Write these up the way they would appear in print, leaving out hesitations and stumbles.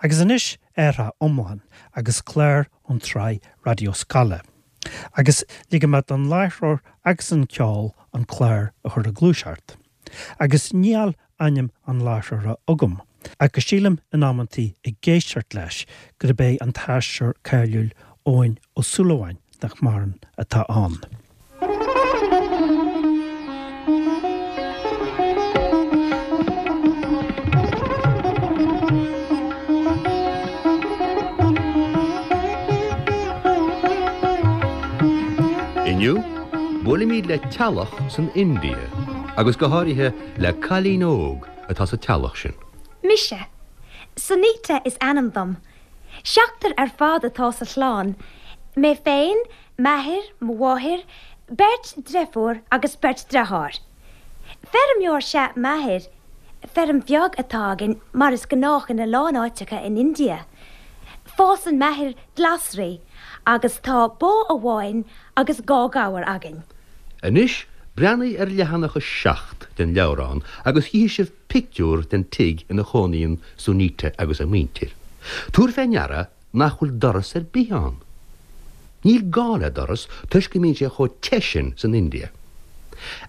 Agus anois athrach iomlán agus clár ón tsraith Raidió Scoile. Agus ligfidh mé don láithreoir agus an ceol an clár a chur ag gluaiseacht. Agus níl ainm an láithreora agam, ach go sílim in amantaí ag éisteacht leis gurb é an t-aisteoir cáiliúil Eoin Ó Súilleabháin, nach maireann, atá ann. Inniu, buailimid le teaghlach san India, agus go háirithe le cailín óg atá sa teaghlach sin. Mise. Sunita is ainm dom. Seachtar ar fad atá sa chlann, mé féin, m'athair, mo mháthair, beirt driofúr agus beirt driotháir. Feirmeoir 'sea m'athair. Feirm bheag atá againn, mar is gnách ina lán áiteacha in India. Fásann m'athair glasraí agus tá bó amháin agus dha ghabhar againn. Anois breathnaigh ar leathanach 7 den leabhrán agus chífidh sibh pictiúr den tigh ina chónaíonn Sunita agus a muintir. Tabhair fé ndeara nach bhfuil doras ar bith ann. Níl gá le doras toisc go mbíonn sé chomh te sin san India.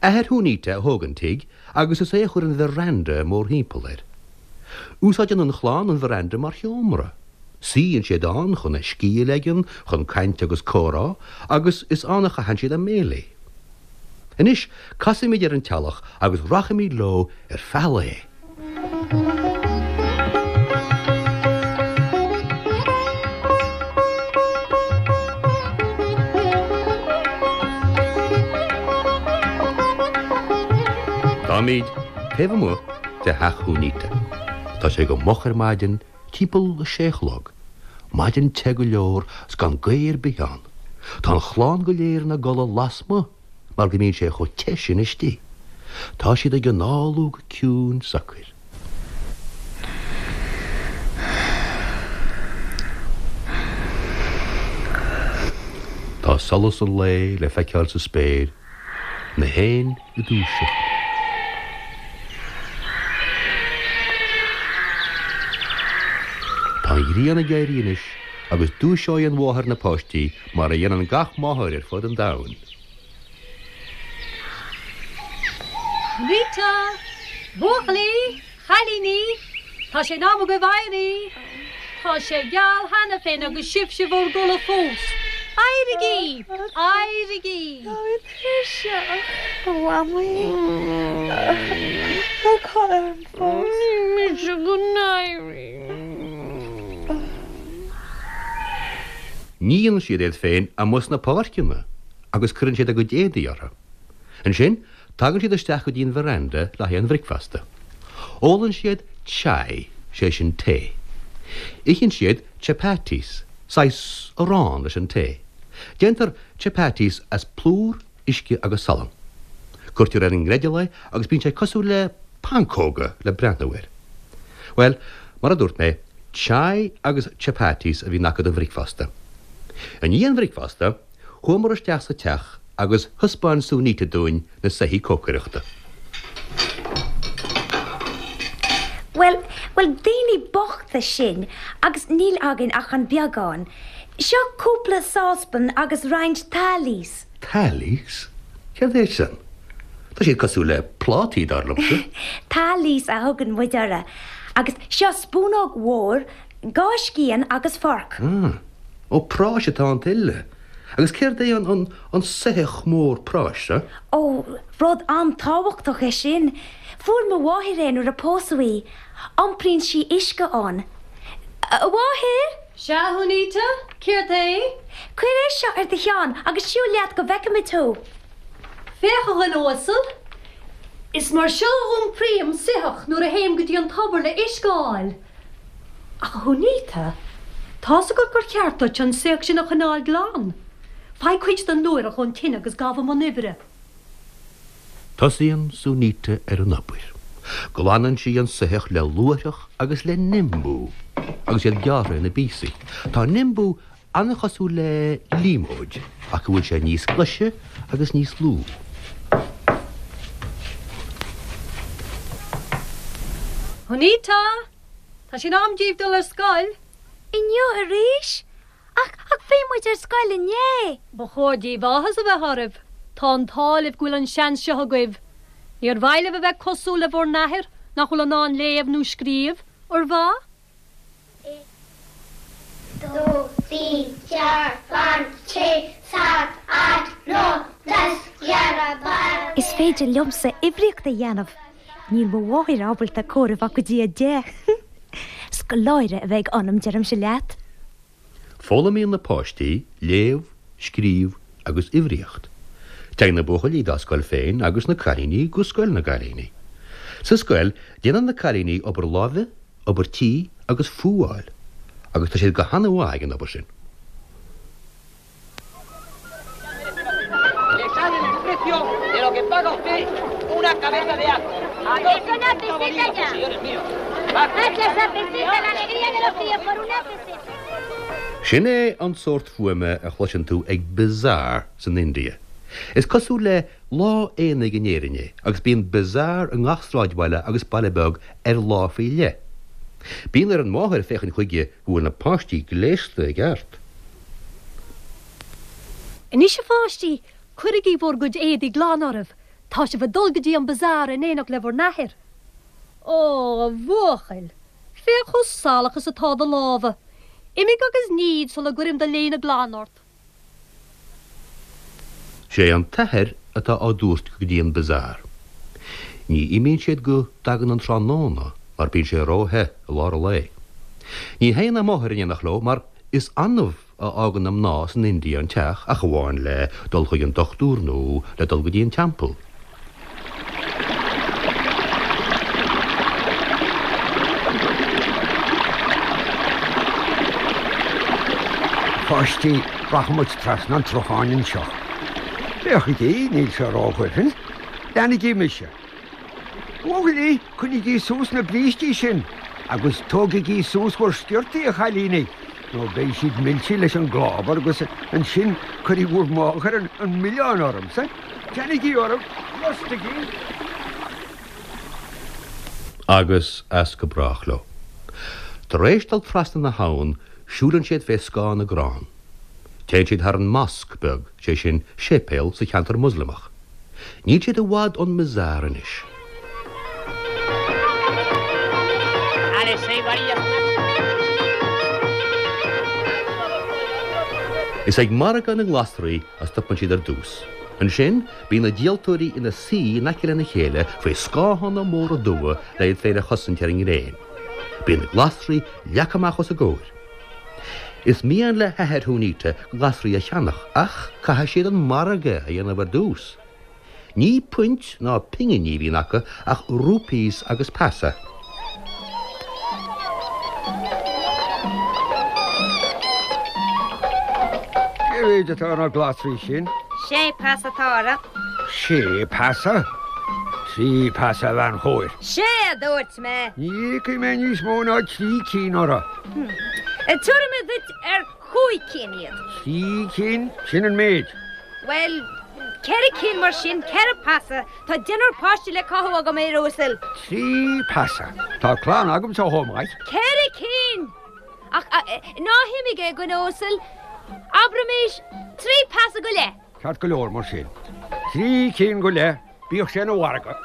Athair Shunita a thóg an tigh agus is é a chuir an veranda mórthimpeall air. Úsáideann an chlann an veranda mar sheomra. Suíonn siad ann chun a scíth a leigean, chun caint agus comhrá, agus is ann a chaitheann siad a mbéilí. Anois, casfaimid ar an teallach agus rachaimid leo ar feadh lae. Táimid taobh amuigh de theach Shunita. Tá sé go moch ar maidin, timpeall a sé a chlog. Maidin te go leor 's gan gaoth ar bith ann. Tá an chlann go léir ina gcodladh lasmuigh mar go mbíonn sé chomh te sin istigh. Tá siad ag análú go ciúin socair. Tá solas an lae le feiceáil sa spéir, na héin ag dúiseacht. Tá an ghrian ag éirí anois agus dúiseoidh an mháthair na páistí mar a dhéanann gach máthair ar fud an domhain. Sunita! Buachaillí! Chailíní! Tá sé in am agaibh éirí! Tá sé geal cheana féin agus sibhse bhur gcodladh fós! Éirigí! Éirigí! Táim tuirseach, a Mhamaí. Tá codladh orm fós. Ní mise go n-éirím. Níonn siad iad féin amuigh sna páirceanna agus cuireann siad a gcuid éadaí orthu. Ansin, tagann siad isteach go dtí an veranda le haghaidh an bhricfeasta. Ólann siad chai, sé sin tae. Itheann siad chapatis, saghas arán leis an tae. Déantar chapatis as plúr, uisce agus salann. Cuirtear ar an ngreidill é agus bíonn sé cosúil le pancóga le breathnú air. Bhuel, mar a dúirt mé, chai agus chapatis a bhíonn acu don bhricfeasta. I ndiaidh an bhricfeasta, chuamar isteach sa teach agus thaispeáin Sunita dúinn na soithí cócaireachta. Bhuel, bhuel, daoine bochta sinn agus níl againn ach an beagán. Seo cúpla sáspan agus roinnt thalis. Thalis? Céard é sin? Tá siad cosúil le plátaí, dar liomsa. Thalis a thugann muid orthu. Agus seo spúnóg mhór, dha scian agus forc. Ah. Ó, práis atá iontu uile. Agus céard é an, an, an soitheach mór práis seo? Ó, rud an-tábhachtach é sin. Fuair mo mháthair é nuair a pósadh í. Iompraíonn sí uisce ann. A mháthair! Sea, a Shunita? Céard é? Cuir é seo ar do cheann agus siúil leat go bhfeicfimid thú. Féach, a dhuine uasal. Is mar seo a iompraím soitheach nuair a théim go dtí an tobar le uisce a fháil. Ach, a Shunita, tá's agat gur cheart duit an soitheach sin a choinneáil glan. Faigh cuid den luaithreach ón tine agus gabh i mbun oibre. Tosaíonn Sunita ar an obair. Glanann sí an soitheach le luaithreach agus le nimbu, agus iad gearrtha ina bpíosaí. Tá nimbu an-chosúil le líomóid, ach go bhfuil sé níos glaise agus níos lú. Sunita! Tá sé in am daoibh dul ar scoil. Inniu arís? Ach, ach bhí muid ar scoil inné! Ba chóir daoibh áthas a bheith oraibh. Tá an t-ádh libh go bhfuil an seans seo agaibh. Níor mhaith libh a bheith cosúil le bhur n-athair nach bhfuil in ann léamh nó scríobh, ar mhaith? 2, 3, 4, 5, 6, 7, 8, 9, 10, 11, 12. Is féidir liomsa uimhríocht a dhéanamh. Níl mo mháthair ábalta comhaireamh ach go dtí 10. Scoláire a bheidh ionam, deirimse leat. Foghlaimíonn na páistí léamh, scríobh agus uimhríocht. Téann na buachaillí dá scoil féin agus na cailíní go scoil na gcailíní. Sa scoil, déanann na cailíní obair láimhe, obair tí agus fuáil, agus tá siad go han-mhaith ag an obair sin. Sin é an sórt fuaime a chloiseann tú ag bazaar san India. Is cosúil le lá aonaigh in Éirinn é agus bíonn bazaar i ngach sráidbhaile agus baile beag ar lá faoi leith. Bíonn ar an mháthair féachaint chuige go bhfuil na páistí gléasta i gceart. Anois a pháistí, cuirigí bhur gcuid éadaí glan oraibh, tá sibh ag dul go dtí an bazaar in éineacht le bhur n-athair. Ó, a bhuachaill, féach chomh salach is atá do lámha. Imigh agus nigh iad sula gcuirim do léine glan ort. Sé an t-athair atá á dtabhairt go dtí an bazaar. Ní imíonn siad go dtagann an tráthnóna mar bíonn sé ró-the i lár an lae. Ní théann a máthair in éineacht leo mar is annamh a fhágann na mná san India an teach ach amháin le dul chuig an dochtúir nó le dul go dtí an teampall. A pháistí, rachaidh muid trasna an tsrutháin anseo. Féachaigí, níl sé ródhoimhin. Leanaigí mise. A bhuachaillí, coinnígí suas na brístí sin agus tógaigí suas bhur sciortaí, a chailíní, nó beidh siad millte leis an gclábar agus ansin cuirfidh bhur máthair an milleán ormsa. Teannaigí oraibh, liostaigí! Agus as go brách leo. Tar éis dul trasna na habhann, siúlann siad fé scáth na gcrann. Téann siad thar an mosque beag, sé sin, séipéal sa cheantar Moslamach. Níl siad i bhfad ón mbazaar anois. Is ag margadh na nglasraí a stopann siad ar dtús. Ansin, bíonn na díoltóirí ina suí in aice lena chéile faoi scáthanna móra dubha le iad féin a chosaint ar an ngréin. Bíonn na glasraí leagtha amach os a gcomhair. Is mian le hathair Shunita glasraí a cheannach ach caithfidh siad an margadh a dhéanamh ar dtús. Ní puint ná pinginí a bhíonn acu ach rupees agus paisa. Cé mhéid atá ar na glasraí sin? Sé paisa atá orthu. Sé paisa? Trí paisa, a bhean chóir. Sé a dúirt mé. Ní íocfaidh mé níos mó ná trí cinn orthu. Tabharfaidh mé duit ar chúig cinn iad. Trí cinn, sin an méid. Bhuel, ceithre cinn mar sin, ceithre paisa. Tá deichniúr páiste le cothú agam, a fhir uasail. Trí paisa. Tá clann agamsa chomh maith. Ceithre cinn! Ach ná himigh, a dhuine uasail. Abraimis trí paisa go leith. Ceart go leor mar sin. Trí cinn go leith, bíodh sé ina mhargadh.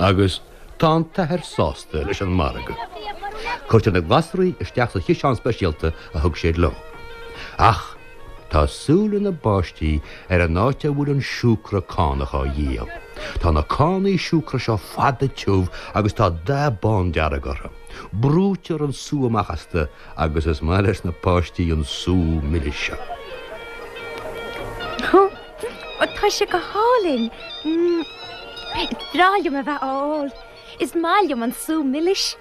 Agus tá an t-athair sásta leis an margadh. Cuirtear na glasraí isteach sa chiseán speisialta a thug siad leo. Ach tá súile na bpáistí ar an áit a bhfuil an siúcra cánach á dhíol. Tá na cánaí siúcra seo fada tiubh agus tá dath bándearg orthu. Brúitear an sú amach astu agus is maith leis na páistí an sú milis seo. Ó, tá sé go hálainn! Is breá liom a bheith á ól. Is maith liom an sú milis.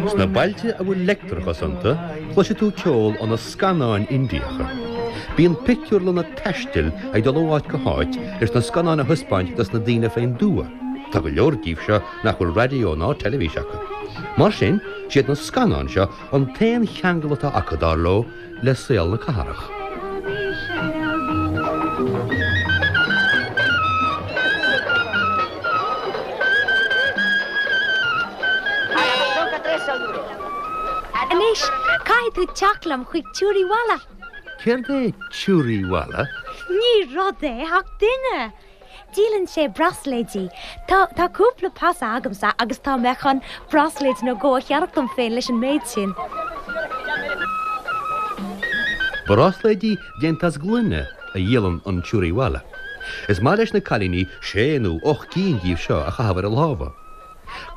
Sna bailte a bhfuil leictreachas iontu, cloisfidh tú ceol ó na scannáin Indiacha. Bíonn pictiúrlanna taistil ag dul ó áit go háit leis na scannáin a thaispeáint dos na daoine fén dtuath. Tá go leor díobh seo nach bhfuil raidió ná teilifís acu. Mar sin, siad na scannáin seo an t-aon cheangal atá acu, dar leo, le saol na cathrach. Anois, caithfidh tú teacht liom chuig Churiwala. Céard é Churiwala? Ní rud é, ach duine! Díolann sé brasléidí. Tá, tá cúpla paisa agamsa agus tá mé chun brasléid nó dhó a cheannach dom féin leis an méid sin. Brásléidí déanta as gloine a dhíolann an Churiwala. Is maith leis na cailíní sé nó 8 gcinn díobh seo a chaitheamh ar a lámha.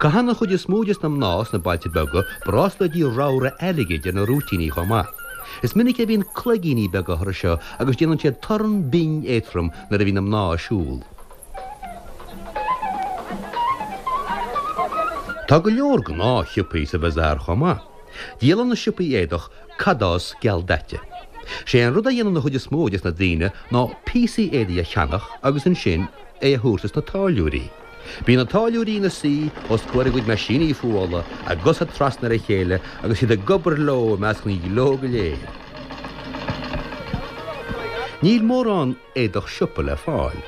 Caitheann an chuid is mó des na mná sna bailte beaga brásléidí ramhra airgid ar na rúitíní chomh maith. Is minic a bhíonn cloigíní beaga orthu seo agus déanann siad torann binn éadtrom nuair a bhíonn na mná ag siúl. Tá go leor gnáthshiopaí sa bhazaar chomh maith. Díolann na siopaí éadach cadás gealdaite. Sé an rud a dhéanann an chuid is mó des na daoine ná píosaí éadaigh a cheannach agus ansin é a thabhairt dos na táilliúirí. Bíonn na táilliúirí ina suí os comhair a gcuid meaisíní fuála, a gcosa trasna ar a chéile agus iad ag obair leo i measc an ghleo go léir. Níl mórán éadach siopa le fáil.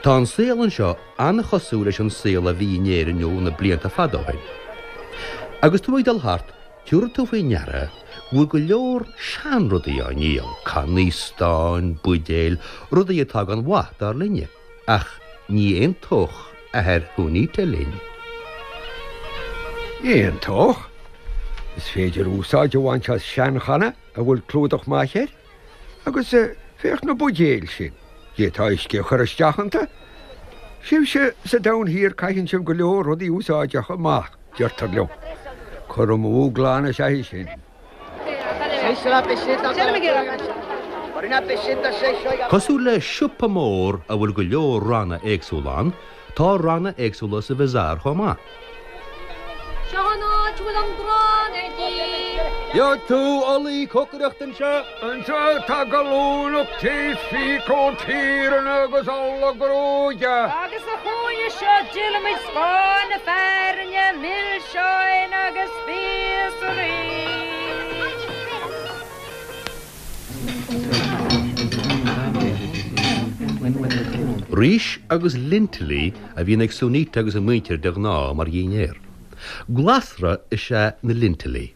Tá an saol anseo an-chosúil leis an saol a bhí in Éirinn ó na blianta fada ó shin. Agus tú ag dul thart, tabharfaidh tú faoi ndeara go bhfuil go leor seanrudaí á ndíol, cannaí stáin, buidéil, rudaí atá gan mhaith, dar linne. Ach ní aontódh athair Shunita linn. Aontódh? Is féidir úsáid a bhaint as seanchanna a bhfuil clúdach maith air. Agus féach na buidéil sin, d'fhéadfá uisce a chur isteach iontu. Sibhse sa Domhan Thiar caitheann sibh go leor rudaí úsáideacha amach, deirtear liom. Cur amú glan is ea é sin. Cosúil le siopa mór a bhfuil go leor ranna éagsúla ann, tá ranna éagsúla sa bhazaar chomh maith. Seo an áit a bhfuil an grán ar díol. Gheobhaidh tú olaí cócaireachta anseo. Anseo tá gallúnach tae is phícóg tíreanna agus ola gruaige. Agus sa chúinne seo díolaimid scáth na fearthainne, milseáin agus spíosraí. Rís agus lintilí a bhíonn ag Sunita agus a muintir de ghnáth mar dhinnéar. Glasra is ea na lintilí.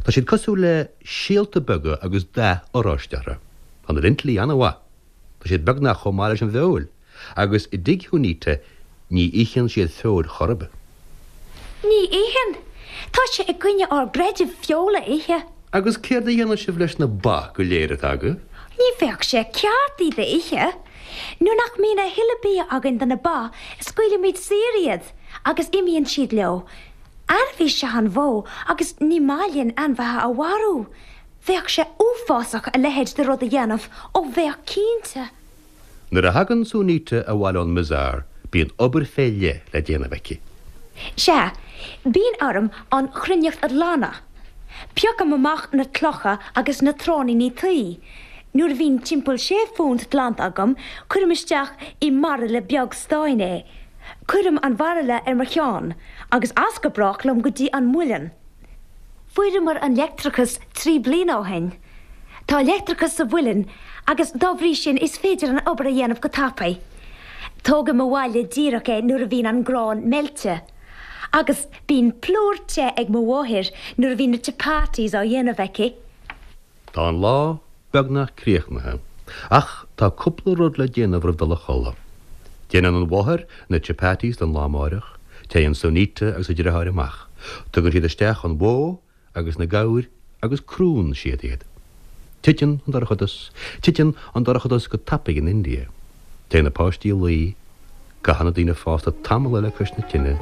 Tá siad cosúil le síolta beaga agus dath oráiste orthu. Tá na lintilí an-mhaith. Tá siad beagnach chomh maith leis an bhfeoil. Agus i dtigh Shunita ní itheann siad feoil chor ar bith. Ní itheann. Tá sé i gcoinne ár gcreidimh feoil a ithe. Agus céard a dhéanann sibh leis na ba go léir atá agaibh? Ní bheadh sé ceart iad a ithe. Nuair nach mbíonn a thuilleadh bia againn do na ba, scaoilimid saor iad agus imíonn siad leo. Ainmhí is ea an bhó agus ní maith linn ainmhithe a mharú. Bheadh sé uafásach a leithéid de rud a dhéanamh, ó bheadh cinnte. Nuair a thagann Sunita abhaile ón mbazaar bíonn obair fé leith le déanamh aici. Sea, bíonn orm an chruithneacht a ghlanadh. Piocaim amach na clocha agus na tráithníní tuí. Nuair a bhíonn timpeall sé phunt glanta agam, cuirim isteach i mbairille beag stáin é. Cuirim an bhairille ar mo cheann, agus as go brách liom go dtí an muileann. Fuaireamar an leictreachas 3 bliana ó shin. Tá leictreachas sa mhuileann agus dá bhrí sin is féidir an obair a dhéanamh go tapaidh. Tógaim abhaile díreach é nuair a bhíonn an grán meilte. Agus bíonn plúr te ag mo mháthair nuair a bhíonn na chapatis á dhéanamh aici. Tá an lá beagnach críochnaithe, ach tá cúpla rud le déanamh roimh dul a chodladh. Déanann an mháthair na chapatis don lá amáireach, téann Sunita agus a deartháir amach, tugann siad isteach an bhó agus na gabhair agus crúnn siad iad. Titeann an dorchadas, titeann an dorchadas go tapaidh in India. Téann na páistí a luí, caitheann na daoine fásta tamall eile cois na tine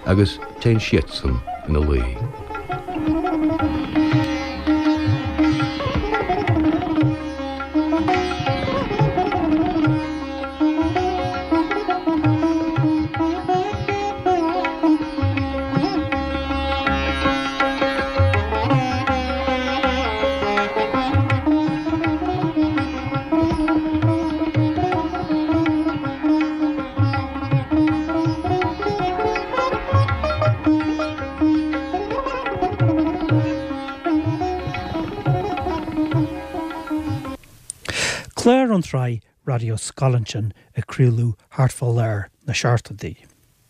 agus téann siadsan ina luí. Clár ón tsraith Raidió Scoile ansin a craoladh thart fá lár na seachtóidí.